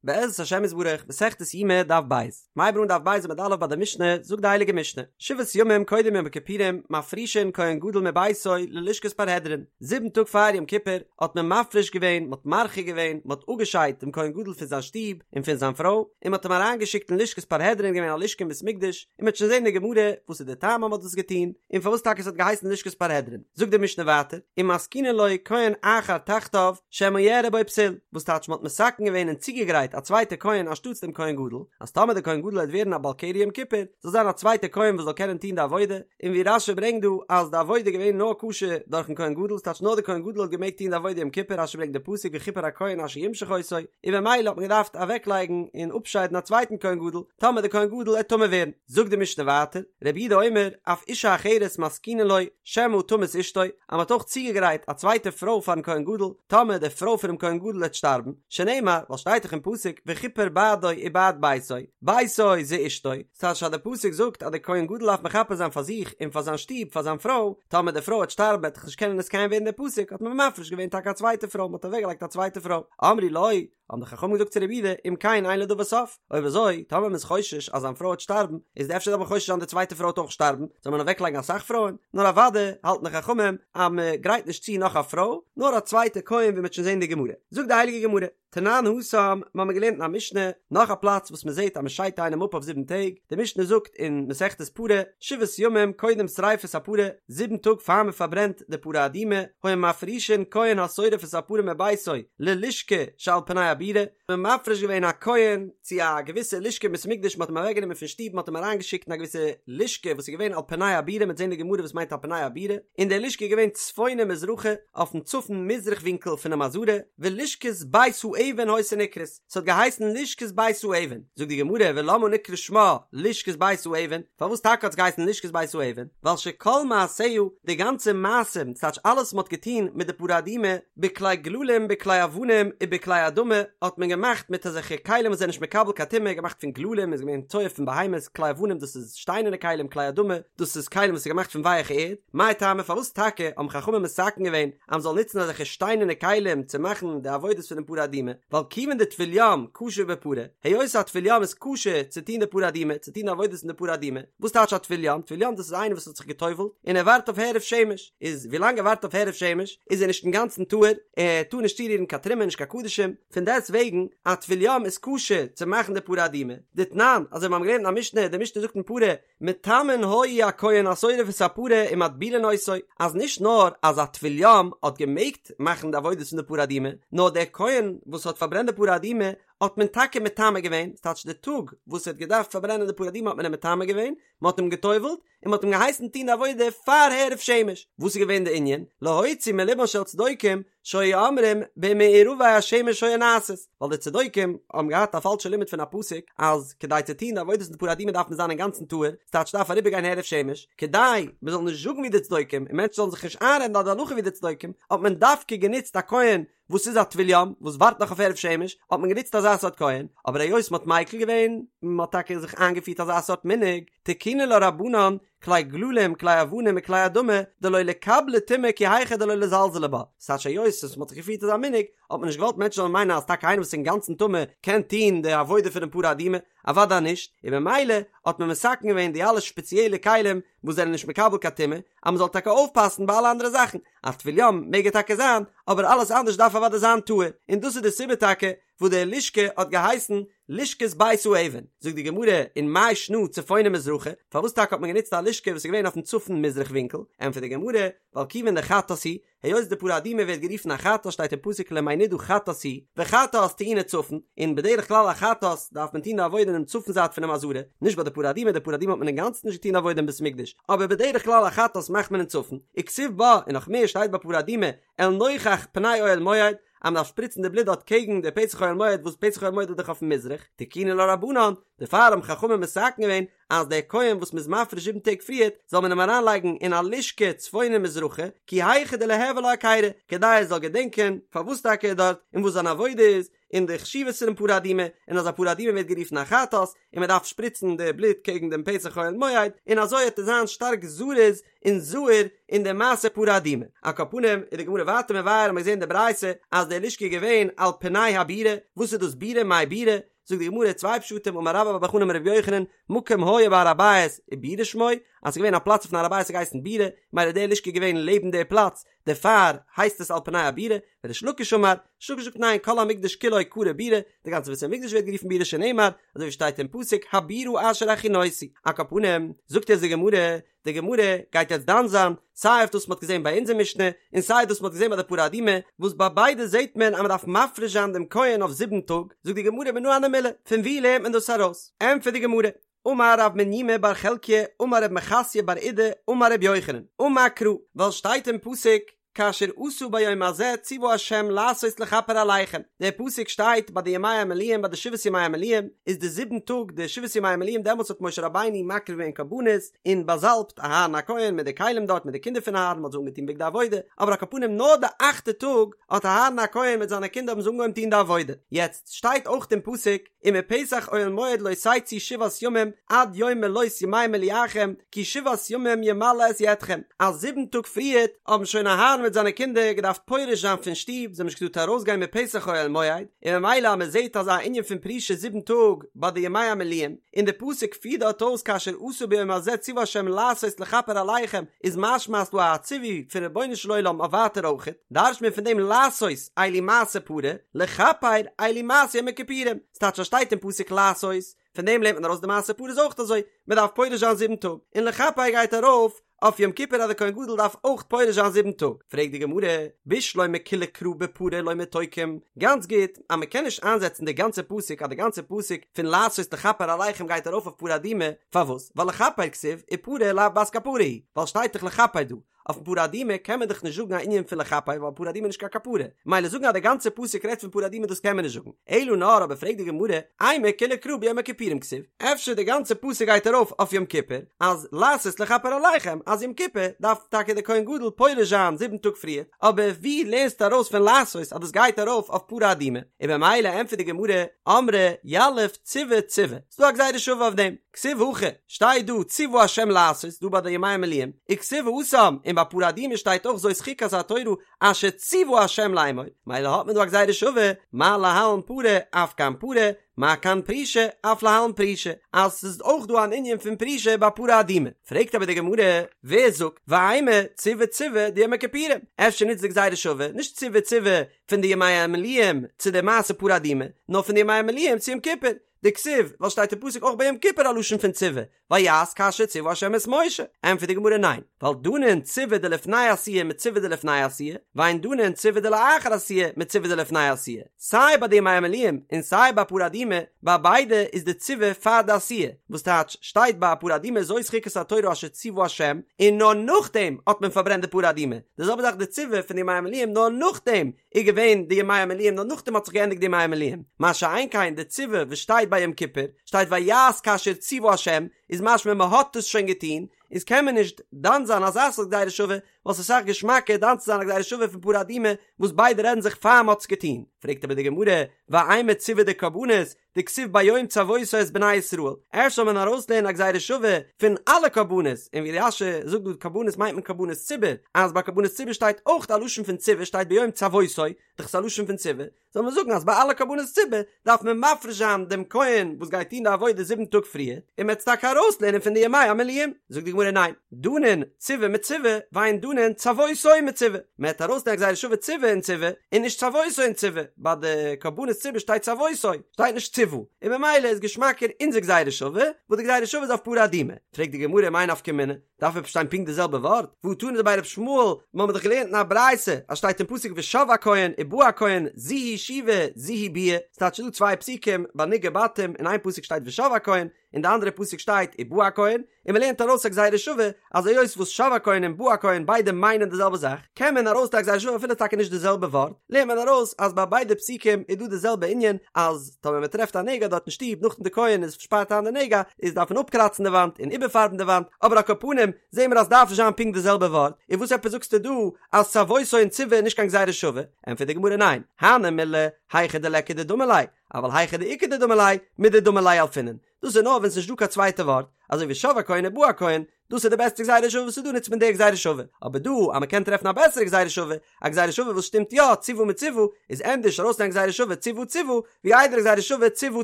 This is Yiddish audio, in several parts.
בעזרת השם יתברך, מסכת יומא דף ב', מ'הייבט אן דף ב' עמוד א' ביי די משנה, זאגט די הייליגע משנה, שבעת ימים קודם יום הכיפורים מפרישין כהן גדול מביתו ללשכת פרהדרין, זיבן טאג פאר יום כיפור האט מען מפריש געווען, מען האט מרחיק געווען, מען האט אפגעשיידט דעם כהן גדול פון זיין שטוב און פון זיין פרוי, און מען האט אים אריינגעשיקט אין לשכת פרהדרין, געווען א לשכה אין בית מקדש, און מען וועט שוין זען אין די גמרא וואס איז די טעם אז מען האט דאס געטון, און פארוואס טאקע עס האט געהייסן לשכת פרהדרין. זאגט די משנה ווייטער, ומתקינין לו כהן אחר תחתיו שמא יארע בו פסול, וואס טייטש מען האט מתקן געווען און צוגעגרייט א צווייטע כהן אנשטאטס דעם כהן גדול, אז טאמער דער כהן גדול וועט ווערן א בעל קרי יום כיפור, זאל זיין א צווייטע כהן וואס זאל קענען טון די עבודה, און ווי רש"י ברענגט דא אז די עבודה איז געווען נאר כשר דורכן כהן גדול, ס'טייטש נאר דער כהן גדול האט געמעגט טון די עבודה יום כיפור, רש"י ברענגט די פסוק וכפר הכהן אשר ימשח אותו, און במילא האט מען געדארפט אוועקלייגן און אפשיידן א צווייטן כהן גדול, טאמער דער כהן גדול עט טמא ווערן. זאגט די משנה ווייטער, רבי יהודה אומר, אף אישה אחרת מתקינין לו, שמא תמות אשתו, אז מען האט אויך צוגעגרייט א צווייטע פרוי פארן כהן גדול, טאמער די פרוי פונעם כהן גדול וועט שטארבן, שנאמר, ווייל שטייט דאך אין פסוק, וכפר בעדו ובעד ביתו, ביתו זה אשתו, ס'טייטש אז די פסוק זאגט אז די כהן גדול דארף מכפר זיין פאר זיך און פאר זיין שטוב, פאר זיין פרוי, טאמער די פרוי וועט שטארבן וועט דאך נישט קענען נתקיים ווערן די פסוק, האט מען מפריש געווען טאקע א צווייטע פרוי, מען האט אוועקגעלייגט א צווייטע פרוי, אמרו לו, האבן די חכמים געזאגט צו רבי יהודה, אם כן אין לדבר סוף, אויב אזוי, טאמער מען איז חושש אז זיין פרוי וועט שטארבן, איז אפשר דארף מען חושש זיין די צווייטע פרוי וועט אויך שטארבן, זאל מען אוועקלייגן אסאך פרויען? נאר אוודאי האלטן די חכמים אז מען גרייט נישט צו נאך א פרוי, נאר א צווייטע כהן ווי מען וועט שוין זען אין די גמרא. זאגט די הייליגע גמרא, תנן התם, מיר האבן געלערנט אין א משנה, נאך א פלאץ וואס מען זעט אז מען שיידט איינעם אפ אויף זיבן טעג, די משנה זאגט אין מסכת פרה, שבעת ימים קודם שריפת הפרה, זיבן טאג פאר מען פארברענט די פרה אדומה, היו מפרישין כהן השורף את הפרה מביתו ללשכה שעל פני הבירה, מען מפריש געווען א כהן צו א געוויסע לשכה אין בית המקדש, מען האט אים אוועקגענומען פון שטוב, מען האט אים אריינגעשיקט אין א געוויסע לשכה וואס איז געווען על פני הבירה, מ'וועט זען אין די גמרא וואס מיינט על פני הבירה, און די לשכה איז געווען צפונה מזרחה, אויפן צפון מזרח ווינקל פונעם עזרה, ולשכת בית האבן היתה נקראת. ס'האט געהייסן לשכת בית האבן, זאגט די גמרא ולמה נקרא שמה לשכת בית האבן, פארוואס טאקע האט עס געהייסן לשכת בית האבן, ווייל שכל מעשיה, די גאנצע מעשים, ס'טייטש אלעס וואס מ'האט געטון מיט די פרה אדומה, בכלי גללים בכלי אבנים ובכלי אדמה, האט מען געמאכט מיט אזעלכע כלים וואס זענען נישט מקבל קיין טומאה, געמאכט פון גללים איז געווען צואה פון בהמות, כלי אבנים דאס איז שטיינערנע כלים, כלי אדמה דאס איז כלים וואס איז געמאכט פון ווייעכע ערד, מאי טעמא פארוואס טאקע האבן חכמים מתקן געווען אז מ'זאל נוצן אזעלכע שטיינערנע כלים צו מאכן די עבודות פונעם פרה אדומה, ווייל כיוון דטבול יום כשר בפרה, היות א טבול יום איז כשר צו טון די פרה אדומה, צו טון די עבודות אין די פרה אדומה, וואס טייטש א טבול יום? טבול יום דאס איז איינער וואס האט זיך גע'טובל'ט און ער ווארט אויף הערב שמש, איז ווילאנג ער ווארט אויף הערב שמש איז ער נישט אינגאנצן טהור, ער טאר נישט צורירן קיין תרומה נישט קיין קדשים, פון דעסט וועגן א טבול יום איז כשר צו מאכן די פרה אדומה, דתנן, אזוי ווי מיר האבן געלערנט אין א משנה, די משנה זאגט אין פרה, מטמאין היו הכהן השורף את הפרה ומטבילין אותו, אז נישט נאר אז א טבול יום האט געמעגט מאכן די עבודות פון די פרה אדומה, נאר דער כהן וואס האט פארברענט די פרה אדומה האט מען טאקע מטמא געווען, ס'טייטש די טאג וואס ער האט געדארפט פארברענען די פרה אדומה האט מען אים מטמא געווען, מען האט אים גע'טובל'ט, און מען האט אים געהייסן טון די עבודה פאר הערב שמש, וואס איז געווען די ענין? להוציא מלבן של צדוקים שהיו אומרים במעורבי השמש היו נעשות, ווייל די צדוקים האבן געהאט א פאלשע לימוד פון א פסוק אז כדי צו טון די עבודות פון די פרה אדומה דארף מען זיין אינגאנצן טהור, ס'טייטש דארף אריבערגיין הערב שמש, כדי מען זאל נישט זאגן ווי די צדוקים און מענטשן זאלן זיך נישט איינרעדן אז די הלכה ווי די צדוקים, האט מען דווקא גענוצט א כהן וואס איז א טבול יום וואס ווארט נאך אויף הערב שמש, האט מען גענוצט אזא סארט כהן, אבער היות מען האט מיקל געווען, מען האט טאקע זיך איינגעפירט אזא סארט מנהג, תקינו לה רבנן, כלי גללים, כלי אבנים וכלי אדמה, דלא ליקבלו טומאה כי היכי דלא לזלזולי בה, ס'טייטש היות וואס מ'האט זיך געפירט אזא מנהג, האט מען נישט געוואלט מענטשן זאלן מיינען אז טאקע איינער וואס איז אינגאנצן טמא קען טון די עבודה פונעם פרה אדומה, אוודאי נישט, און ממילא האט מען מתקן געווען די אלע שפעציעלע כלים וואס זענען נישט מקבל קיין טומאה, אז מ'זאל טאקע אויפפאסן ביי אלע אנדערע זאכן, א טבול יום מעג ער טאקע זיין, אבער אלעס אנדערש דארף אוודאי זיין טהור, און דאס איז די סיבה טאקע וואס די לשכה האט געהייסן לשכת בית האבן, זאגט די גמרא און מאי שנא צפונה מזרחה, פארוואס טאקע האט מען גענוצט א לשכה וואס איז געווען אויפן צפון מזרח ווינקל, ענטפערט די גמרא, ווייל כיוון דחטאת היא, היות די פרה אדומה ווערט גערופן א חטאת שטייט אין פסוק למי נדה חטאת היא, וחטאת טעונה צפון, און בדרך כלל א חטאת דארף מען טון די עבודה אינעם צפון זייט פונעם עזרה, נישט ביי די פרה אדומה, די פרה אדומה האט מען אינגאנצן נישט געטון די עבודה אין בית מקדש, אבער בדרך כלל א חטאת מאכט מען אין צפון, וכתיב בה, און נאך מער שטייט ביי פרה אדומה, אל נוכח פני אוהל מועד, אז מ'דארף שפריצן די בלוט דארט קעגן די פתח אוהל מועד וואס פתח אוהל מועד איז דאך אויפן מזרח, תקינו לה רבנן, דערפאר האבן חכמים מתקן געווען אז דער כהן וואס מ'איז מפריש זיבן טעג פריערט זאל מען אים אריינלייגן אין א לשכה צפונה מזרחה, כי היכי דליהוי לה היכירא, כדי ער זאל געדענקען פארוואס טאקע ער איז דארט און וואס זיין עבודה איז. און די חשיבות פונעם פרה אדומה, און אז א פרה אדומה ווערט גערופן א חטאת, און מען דארף שפריצן די בלוט קעגן דעם פתח אוהל מועד, און אזוי וועט ער זיין שטארק זריז און זהיר אין די מעשה פרה אדומה. על כל פנים איז די גמרא ווייטער מבאר האט מען געזען די ברייתא אז די לשכה איז געווען על פני הבירה, וואס איז דאס בירה מאי בירה? זאגט די גמרא צוויי פשטים אמר רבה בר בר חנה אמר רבי יוחנן מקום היה בהר הבית ובירה שמו אז ס'איז געווען א פלאץ אויפן הר הבית האט געהייסן בירה מילא די לשכה איז געווען לעבן די פלאץ דערפאר הייסט עס על פני הבירה וריש לקיש אמר ריש לקיש זאגט ניין כל המקדש כולו קרוי בירה די גאנצע בית המקדש ווערט גערופן בירה שנאמר אזוי ווי שטייט אין פסוק הבירה אשר הכינותי על כל פנים זאגט יעצט די גמרא די גמרא גייט יעצט דן זיין סיי אויף דאס מ'האט געזען ביי אונזער משנה און סיי דאס מ'האט געזען ביי די פרה אדומה וואס ביי ביידע זעט מען אז מ'דארף מפריש זיין דעם כהן אויף זיבן טאג זאגט די גמרא מנא הני מילי פון וואו לערנט מען דאס ארויס ענטפערט די גמרא אמר רב מניומי בר חלקיה אמר רב מחסיא בר אידי אמר רבי יוחנן אמר קרא ווייל שטייט אין פסוק כאשר עשה ביום הזה ציוה ה' לעשות לכפר עליכם, דער פסוק שטייט ביי די ימי המילואים ביי די שבעת ימי המילואים איז די זיבן טאג די שבעת ימי המילואים דעמאלטס האט משה רבינו מקריב געווען קרבנות און באזאלבט אהרן הכהן מיט די כלים דארט מיט די קינדער פון אהרן מ'האט זיי אנגעטון בגדי עבודה אבער על כל פנים נאר די אכטע טאג האט אהרן הכהן מיט זיינע קינדער האבן זיי אנגעהויבן טון די עבודה יעצט שטייט אויך אין פסוק ומפתח אוהל מועד לא תצאו שבעת ימים עד יום מלאות ימי מילואכם כי שבעת ימים ימלא את ידכם, אז זיבן טאג פריערט האבן שוין אהרן מיט זיינע קינדער געדארפט פורש זיין פון שטוב, זיי האבן נישט געטארט ארויסגיין מפתח אוהל מועד, און ממילא אז מען זעט אזא ענין פון פרישה זיבן טאג ביי די ימי המילואים, און די פסוק פירט דארט אויס כאשר עשה ביום הזה ציוה ה' לעשות לכפר עליכם, איז משמע אז ס'דא א ציווי פון רבונו של עולם אויף ווייטער אויכעט, דרש'ט מען פון דעם לעשות אלו מעשה פרה, לכפר אלו מעשה יום הכיפורים, ס'טייטש אז שטייט אין פסוק לעשות, פון דעם לערנט מען ארויס די מעשה פרה איז אויך אזוי, מען דארף פורש זיין זיבן טאג, און לכפר גייט ארויף אויף יום כיפור אז די כהן גדול דארף אויך פורש זיין זיבן טאג, פרעגט די גמרא, בשלמא כוליה קרא בפרה לא מיתוקם, גאנץ גוט אז מען קען נישט איינזעצן די גאנצע פסוק אז די גאנצע פסוק פון לעשות לכפר עליכם גייט ארויף אויף פרה אדומה, פארוואס? ווייל לכפר כתיב ופרה לאו בת כפרה היא, ווייל שטייט דאך לכפר דא, אויפן פרה אדומה קען מען דאך נישט זאגן א ענין פון לכפר ווייל פרה אדומה איז נישט קיין כפרה, מילא זאגן אז די גאנצע פסוק רעדט פון פרה אדומה דאס קען מען נישט זאגן, אלא נאר אבער פרעגט די גמרא, אימא כוליה קרא ביום הכיפורים כתיב, אפשר די גאנצע פסוק גייט ארויף אויף יום כיפור, אז לעשות לכפר עליכם אז יום כיפור דארף טאקע די כהן גדול פורש זיין זיבן טאג פריער, אבער ווי לערנסטו ארויס פון לעשות אז דאס גייט ארויף אויף פרה אדומה? און במילא ענטפערט די גמרא, אמרי יליף ציוה ציוה, ס'דא א גזירה שווה אויף דעם. כתיב הכא, שטייט דא ציוה השם לעשות, דא ביי די ימי המילואים, וכתיב התם, און ביי פרה אדומה שטייט אויך זאת חוקת התורה אשר ציוה השם לאמור, מילא האט מען דא א גזירה שווה, מה להלן פרה אף כאן פרה, מה כאן פרישה אף להלן פרישה, אז ס'איז אויך דא אן ענין פון פרישה ביי פרה אדומה. פרעגט אבער די גמרא, ווער זאגט, ואימא ציוה ציוה דיום הכיפורים, אפשר נוצט די גזירה שווה, נישט ציוה ציוה פון די ימי המילואים צו די מעשה פרה אדומה, נאר פון די ימי המילואים צו יום כיפור, דכתיב, ווייל שטייט אין פסוק אויך ביי יום כיפור א לשון פון ציוה, ויעש כאשר ציוה השם את משה, ענטפערט די גמרא ניין, ווייל דנין ציוה דלפני עשיה מציוה דלפני עשיה, ואין דנין ציוה דלאחר עשיה מציוה דלפני עשיה, סיי ביי די ימי המילואים און סיי ביי פרה אדומה, ביי ביידע איז די ציוה פאר די עשיה, וואס טייטש שטייט ביי פרה אדומה זאת חוקת התורה אשר ציוה השם, און נאר נאכדעם האט מען פארברענט די פרה אדומה, די זעלבע זאך די ציוה פון די ימי המילואים נאר נאכדעם איז געווען די ימי המילואים נאר נאכדעם האט זיך געענדיגט די ימי המילואים, מה שאין כן די ציוה וואס שטייט ביי יום כיפור, שטייט ויעש כאשר ציוה השם, איז משמע מען האט עס שוין געטון, איז קען מען נישט דן זיין אזא סארט גזירה שווה, ווייל ס'איז אסאך געשמאקער דן צו זיין א גזירה שווה פון פרה אדומה וואס ביידע רעדן זיך פאר מען האט עס געטון, פרעגט אבער די גמרא, ואימא ציוה דקרבנות, דכתיב ביום צוותו את בני ישראל, אפשר זאל מען ארויסלערנען א גזירה שווה פון אלע קרבנות, און ווי רש"י זאגט דא קרבנות מיינט מען קרבנות ציבור, אז ביי קרבנות ציבור שטייט אויך א לשון פון ציוה שטייט ביום צוותו, דאך ס'איז א לשון פון ציוה, זאל מען זאגן אז ביי אלע קרבנות ציבור דארף מען מפריש זיין דעם כהן וואס גייט טון די עבודה זיבן טאג פריער, און מ'עט עס טאקע ארויסלערנען פון די ימי המילואים, זאגט די גמרא ניין, דנין ציוה מציוה ואין דנין צוותו מציוה, מען העט ארויסלערנען א גזירה שווה ציוה און ציוה, און נישט צוותו און ציוה, ביי די קרבנות ציבור שטייט צוותו, שטייט נישט ציוה, און ממילא איז געשמאקער אונזער גזירה שווה, וואס די גזירה שווה איז אויף פרה אדומה. פרעגט די גמרא מאי נפקא מינה, דארף עפעס שטיין פונקט די זעלבע ווארט? והא תנא דבי רבי ישמעאל, מיר האבן דאך געלערנט אין א ברייתא אז שטייט אין פסוק ושב הכהן ובא הכהן זו היא שיבה זו היא ביאה, ס'טייטש ס'איז דא צוויי פסוקים ביי נגעי בתים, אין איין פסוק שטייט ושב הכהן, אין די אנדערע פסוק שטייט ובא הכהן, און מען לערנט ארויס א גזירה שווה אז היות וואס שב הכהן און בא הכהן ביידע מיינען די זעלבע זאך, קען מען ארויסלערנען א גזירה שווה אפילו טאקע נישט די זעלבע ווארט, לערנט מען ארויס אז ביי ביידע פסוקים איז דא די זעלבע ענין אז טאמער מען טרעפט א נגע דארט אין שטוב נאכדעם די כהן איז שפארט איין די נגע איז דארף מען אפקראצן די וואנט און איבערפארבן די וואנט, אבער על כל פנים זעהן מיר אז דארף נישט זיין פונקט די זעלבע ווארט, און וואס עפעס זאגסטו דא אז צוותו און צוה איז נישט קיין גזירה שווה? ענטפערט די גמרא ניין, הני מילי היכא דליכא דדמי ליה, אבל היכא דאיכא דדמי ליה, מדדמי ליה ילפינן, דאס איז נאר ווען ס'איז נישט דא קיין צווייטע ווארט, אזוי ווי שב הכהן ובא הכהן, דאס איז די בעסטע גזירה שווה וואס איז דא נוצט מען די גזירה שווה, אבער דא אז מ'קען טרעפן א בעסערע גזירה שווה, א גזירה שווה וואס שטימט יא, צוה מצוה, איז ענדערש ארויסלערנען גזירה שווה צוה צוה, ווי איידער גזירה שווה צוה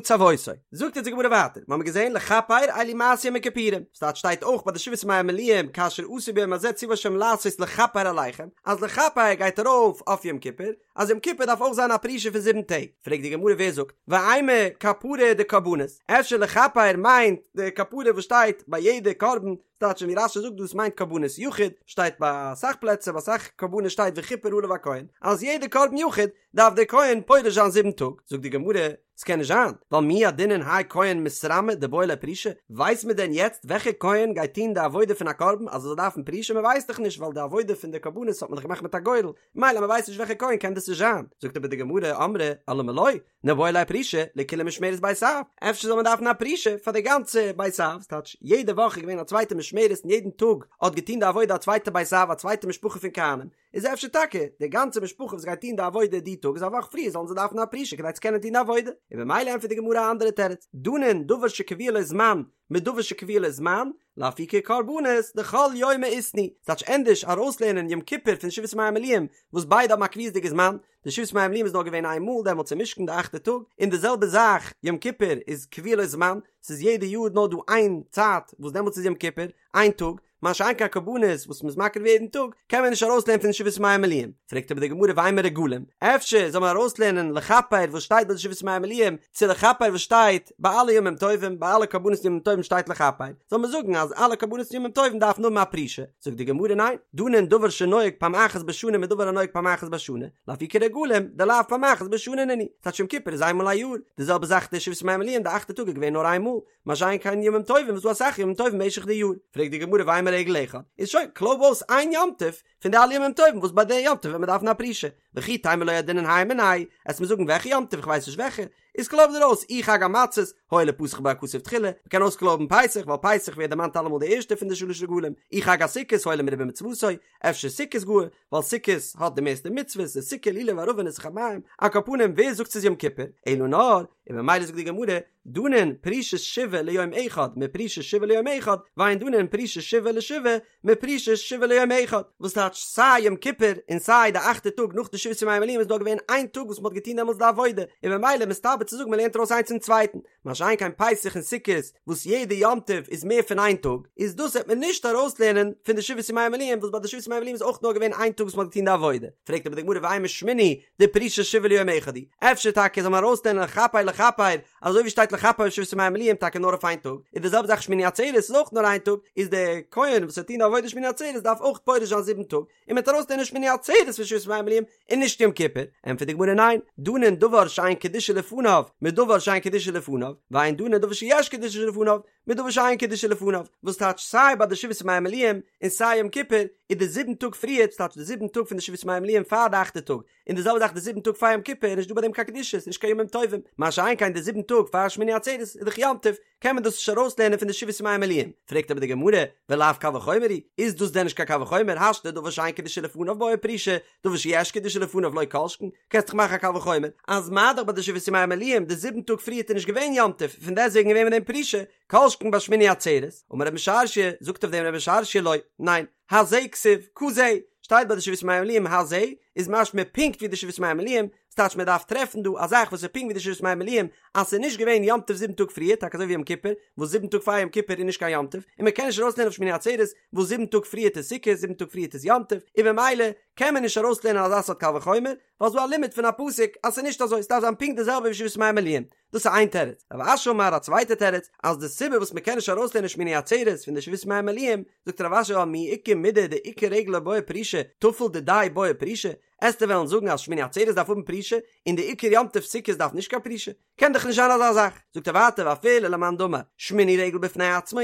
צוותו. זאגט אונז די גמרא ווייטער, מ'האמיר געזען לכפר אלו מעשי יום הכיפורים, ס'טייטש שטייט אויך ביי די שבעת ימי המילואים כאשר עשו ביום הזה צוה השם לעשות לכפר עליכם, אז לכפר גייט ארויף אויף יום כיפור, אז יום כיפור דארף אויך זיין א פרישה פון זיבן טעג, פרעגט די גמרא ווער זאגט, ואימא כפרה דקרבנות, אפשר לכפר מיינט די כפרה וואס שטייט ביי יעדע קרבן, ס'טייטש ווי רש"י זאגט דאס מיינט קרבנות יחיד, שטייט ביי אסאך פלעצער ביי אסאך קרבנות שטייט וכפר עליו הכהן, אז יעדע קרבן יחיד דארף דער כהן פורש זיין זיבן טאג, זאגט די גמרא, ס'קען נישט זיין, ווייל מי ידעינן האי כהן מתרמי דבעי ליה פרישה, ווייסט מען דען יעצט וועלכע כהן גייט טון די עבודה פון א קרבן אז ער זאל דארפן פרישה, מען ווייסט דאך נישט ווייל די עבודה פון די קרבנות האט מען דאך געמאכט מיט א גורל, מילא מ'ווייסט נישט וועלכע כהן קען דאס נישט זיין, זאגט אבער די גמרא, אמרי אלמה לא, ניבעי ליה פרישה לכולה משמרת בית אב, אפשר זאל מען דארפן א פרישה פאר די גאנצע בית אב, ס'טייטש יעדע וואך איז געווען א צווייטע משמרת און יעדן טאג האט געטון די עבודה א צווייטע בית אב א צווייטע משפחה פון כהנים, איז אפשר טאקע די גאנצע משפחה וואס גייט טון די עבודה די טאג איז א וואך פריער זאלן זיי דארפן א פרישה כדי צו קענען טון די עבודה, און במילא ענטפערט די גמרא א אנדערע תירוץ, דנין דבר שקבוע לו זמן מדבר שקבוע לו זמן, לאפוקי קרבנות דכל יומא איתנהו, ס'טייטש ענדערש ארויסלערנען יום כיפור פון שבעת ימי המילואים וואס ביידע האבן א קביעות'דיגע זמן, די שבעת ימי המילואים איז נאר געווען איין מאל דעמאלטס אין משכן די אכטע טאג, און די זעלבע זאך יום כיפור איז קבוע לו זמן, ס'איז יעדע יאר נאר דא איין צייט וואס דעמאלטס איז יום כיפור, איין טאג, מה שאין כן קרבנות וואס מ'איז מקריב יעדן טאג, קען מען נישט ארויסלערנען פון שבעת ימי המילואים. פרעגט אבער די גמרא ואימא רגלים, אפשר זאל מען ארויסלערנען לכפר וואס שטייט ביי די שבעת ימי המילואים, צו לכפר וואס שטייט ביי אלע ימים טובים, ביי אלע קרבנות ימים טובים שטייט לכפר, זאל מען זאגן אז אלע קרבנות ימים טובים דארפן האבן א פרישה? זאגט די גמרא ניין, דנין דבר שנוהג פעם אחת בשנה מדבר הנוהג פעם אחת בשנה, לאפוקי רגלים דלאו פעם אחת בשנה נינהו, ס'טייטש יום כיפור איז איינמאל א יאר, די זעלבע זאך די שבעת ימי המילואים די אכטע טאג איז געווען נאר איינמאל, מה שאין כן ימים טובים וואס דא אסאך ימים טובים במשך די יאר, פרעגט די גמרא ואימא רגל אחד, איז שוין, קלויב אויס איין יום טוב פון די אלע ימים טובים וואס ביי די יום טוב וועט מען דארפן א פרישה, וכי תימא לא ידעינן הי מינייהו, עסט מיר זאגן וועלכע יום טוב איך ווייס נישט וועלכע, איז קלויב דיר אויס אי חג המצות, הואיל ופתח בו הכתוב תחילה, מען קען אויסקלויבן פסח ווייל פסח ווערט דערמאנט אלעמאל די ערשטע פון די שלש רגלים, אי חג הסוכות הואיל ומרובה מצוותו, אפשר סוכות גאר, ווייל סוכות האט די מערסטע מצוות, די סוכה לולב ערבה ניסוך המים, על כל פנים ווער זאגט ס'איז יום כיפור, אלא נאר, און ממילא זאגט די גמרא, דנין פרישת שבעה ליום אחד מפרישת שבעה ליום אחד, ואין דנין פרישת שבעה לשבעה מפרישת שבעה ליום אחד, וואס טייטש סיי יום כיפור און סיי די אכטע טאג נאך די שבעת ימי המילואים איז נאר געווען איין טאג וואס מ'האט געטון דעמאלטס די עבודה, און ממילא מסתבר צו זאגן מ'לערנט ארויס איינס פון צווייטן, מה שאין כן פסח און סוכות וואס יעדע יום טוב איז מער פון איין טאג, איז דאס וועט מען נישט ארויסלערנען פון די שבעת ימי המילואים וואס ביי די שבעת ימי המילואים איז אויך נאר געווען איין טאג וואס מ'האט געטון די עבודה, פרעגט אבער די גמרא ואימא שמיני דפרישת שבעה ליום אחד הוא, אפשר טאקע זאל מען ארויסלערנען לכפר לכפר, אזוי ווי שטייט לכפר שבעת ימי המילואים טאקע נאר אויף איין טאג, איז די זעלבע זאך שמיני עצרת איז אויך נאר איין טאג, איז דער כהן וואס וועט טון די עבודה שמיני עצרת דארף אויך פורש זיין זיבן טאג, און מען וועט ארויסלערנען שמיני עצרת פון שבעת ימי המילואים און נישט יום כיפור, ענטפערט די גמרא ניין, דנין דבר שאין קדושה לפניו מדבר שאין קדושה לפניו, ואין דנין דבר שיש קדושה לפניו מדבר שאין קדושה לפניו, וואס טייטש סיי ביי די שבעת ימי המילואים און סיי יום כיפור איז די זיבן טאג פריער, ס'טייטש די זיבן טאג פון די שבעת ימי המילואים פאר די אכטע טאג, און די זעלבע זאך די זיבן טאג פאר יום כיפור איז נישט דא ביי דעם קיין קדושה, ס'איז נישט קיין ימים טובים, מה שאין כן די זיבן טאג פאר שמיני עצרת איז דאך יום טוב, קען מען דאס נישט ארויסלערנען פון די שבעת ימי המילואים, פרעגט אבער די גמרא, ולאו קל וחומר הוא, איז דאס דען נישט קיין קל וחומר, השתא דבר שאין קדושה לפניו בעי פרישה, דבר שיש קדושה לפניו לא כל שכן, קענסט דאך מאכן א קל וחומר, אז מה דאך ביי די שבעת ימי המילואים די זיבן טאג פריערט איז נישט געווען יום טוב, פון דעסטוועגן געווען מיט דעם פרישה, כל שכן ביי שמיני עצרת, אמר רב משרשיא, זאגט אויף דעם רב משרשיא לא, ניין, הזה כתיב, כזה, שטייט ביי די שבעת ימי המילואים הזה, איז משמע פונקט ווי די שבעת ימי המילואים, ס'טייטש מען דארף טרעפן דא א זאך וואס איז פונקט ווי די שבעת ימי המילואים, אז ס'איז נישט געווען יום טוב זיבן טאג פריער, טאקע אזוי ווי יום כיפור, וואס זיבן טאג פאר יום כיפור איז נישט קיין יום טוב, און מען קען נישט ארויסלערנען אויף שמיני עצרת, וואס זיבן טאג פריערט איז סוכות, זיבן טאג פריערט איז יום טוב, און במילא קען מען נישט ארויסלערנען אזא סארט קל וחומר, ווייל ס'דא א לימוד פון א פסוק אז ס'איז נישט אזוי, ס'דארף זיין פונקט די זעלבע ווי שבעת ימי המילואים. דאס איז איין תירוץ. רב אשי אמר א צווייטע תירוץ, אז די סיבה וואס מ'קען נישט ארויסלערנען שמיני עצרת פון די שבעת ימי המילואים, זאגט רב אשי ווייל מי איכא מידי דעיקר רגל לא בעי פרישה, טפל דידיה בעי פרישה, עסטו וועלן זאגן אז שמיני עצרת דארף האבן פרישה, און די עיקר יום טוב סוכות דארף נישט קיין פרישה? קען דאך נישט זיין אזא זאך. זאגט ער ווייטער ואפילו למאן דאמר שמיני רגל בפני עצמו,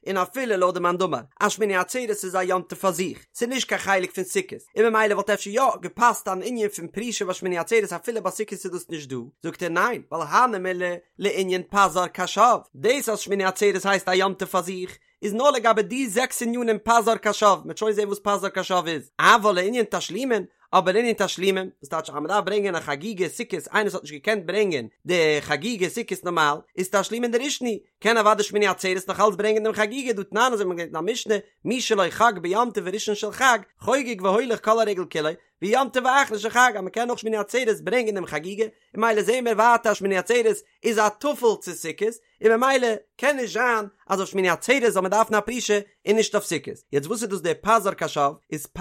און אפילו לויט די מאן דאמר אז שמיני עצרת איז א יום טוב פאר זיך, ס'איז נישט קיין חלק פון סוכות, און ממילא וואלט אפשר יא געפאסט אן ענין פון פרישה ביי שמיני עצרת אפילו ביי סוכות איז דאס נישט דא, זאגט ער ניין, ווייל הני מילי לענין פז"ר קש"ב, דאס אז שמיני עצרת הייסט א יום טוב פאר זיך, איז נאר לגבי די זעקס ענינים פז"ר קש"ב, מ'וועט שוין זען וואס פז"ר קש"ב איז, אבל לענין תשלומין, אבער לענין תשלומין, וואס טייטש אז מ'דארף ברענגען א חגיגה סוכות איינער וואס האט נישט געקענט ברענגען די חגיגה סוכות נארמאל, איז תשלומין דראשון הוא, קען אוודאי שמיני עצרת נאך אלץ ברענגען דעם חגיגה דהא תנן אזוי ווי מ'האט געלערנט אין א משנה, מי שלא חג ביום טוב הראשון של חג, חוגג והולך כל הרגל כולו, ביום טוב האחרון של חג אז מ'קען נאך שמיני עצרת ברענגען דעם חגיגה, און ממילא זעהן מיר ווייטער אז שמיני עצרת איז א טפל צו סוכות, און ממילא קען נישט זיין אז אויף שמיני עצרת זאל מען דארפן א פרישה און נישט אויף סוכות. יעצט וואס איז דאס דער פז"ר קש"ב? איז פ'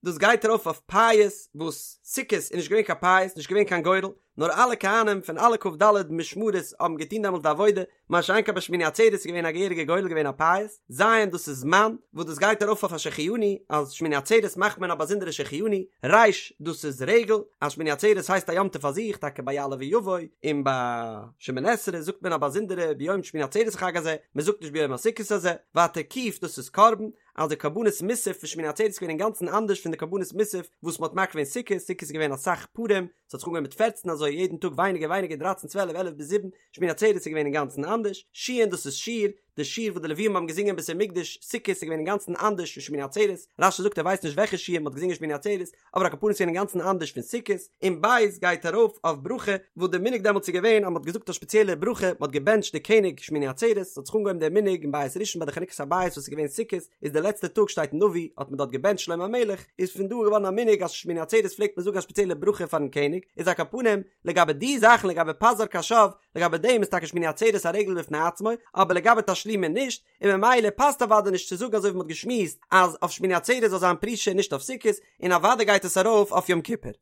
דאס גייט ארויף אויף פייס וואס סוכות איז נישט געווען קיין פייס נישט געווען קיין גורל נאר אלע כהנים פון אלע כ"ד משמרות האבן געטון דעמאלטס די עבודה מה שאין כן ביי שמיני עצרת איז געווען א געהעריגע גורל געווען א פייס. ז' דאס איז זמן וואס דאס גייט ארויף אויף א שהחיינו אז שמיני עצרת מאכט מען א באזונדערע שהחיינו. ר' דאס איז רגל אז שמיני עצרת הייסט א יום טוב פאר זיך טאקע ביי יעלה ויבוא און ביי שמונה עשרה זאגט מען א באזונדערע ביום שמיני עצרת החג הזה, מען זאגט נישט ביום הסוכות הזה, ווייטער ק' דאס איז קרבן, אז די קרבנות מוסף פון שמיני עצרת איז געווען אינגאנצן אנדערש פון די קרבנות מוסף וואס מען האט מקריב געווען סוכות, סוכות איז געווען אסאך פרים, ס'האט זיך אנגעהויבן מיט פערצן אזוי יעדן טאג ווייניגער ווייניגער דרייצן צוועלף עלף ביז זיבן, שמיני עצרת איז געווען אינגאנצן אנדערש, שין דאס איז שיר, די שיר וואס די לווים האבן געזינגען אין בית המקדש סוכות איז געווען אינגאנצן אנדערש פון שמיני עצרת, רש"י זאגט ער ווייסט נישט וועלכע שיר מען האט געזינגען שמיני עצרת, אבער על כל פנים איז געווען אינגאנצן אנדערש פון סוכות, און בית גייט ארויף אויף ברכה, וואס די מנהג דעמאלטס איז געווען אז מען האט געזאגט א שפעציעלע ברכה, מען האט געבענטשט די קעניג שמיני עצרת, ס'האט זיך אנגעהויבן דער מנהג אין בית ראשון ביי די חנוכת הבית וואס איז געווען סוכות, איז די לעצטע טאג שטייט אין נביא האט מען דארט געבענטשט שלמה המלך, איז פון דא געווארן א מנהג אז שמיני עצרת פלעגט מען זאגן א שפעציעלע ברכה פארן קעניג, איז על כל פנים לגבי די זאכן לגבי פז"ר קש"ב, לגבי דעם איז טאקע שמיני עצרת א רגל בפני עצמו, אבער לגבי תשלומין נישט, און ממילא פאסט אוודאי נישט צו זאגן אזוי ווי מ'האט געשמועסט אז אויף שמיני עצרת זאל זיין פרישה און נישט אויף סוכות, און אוודאי גייט עס ארויף אויף יום כיפור.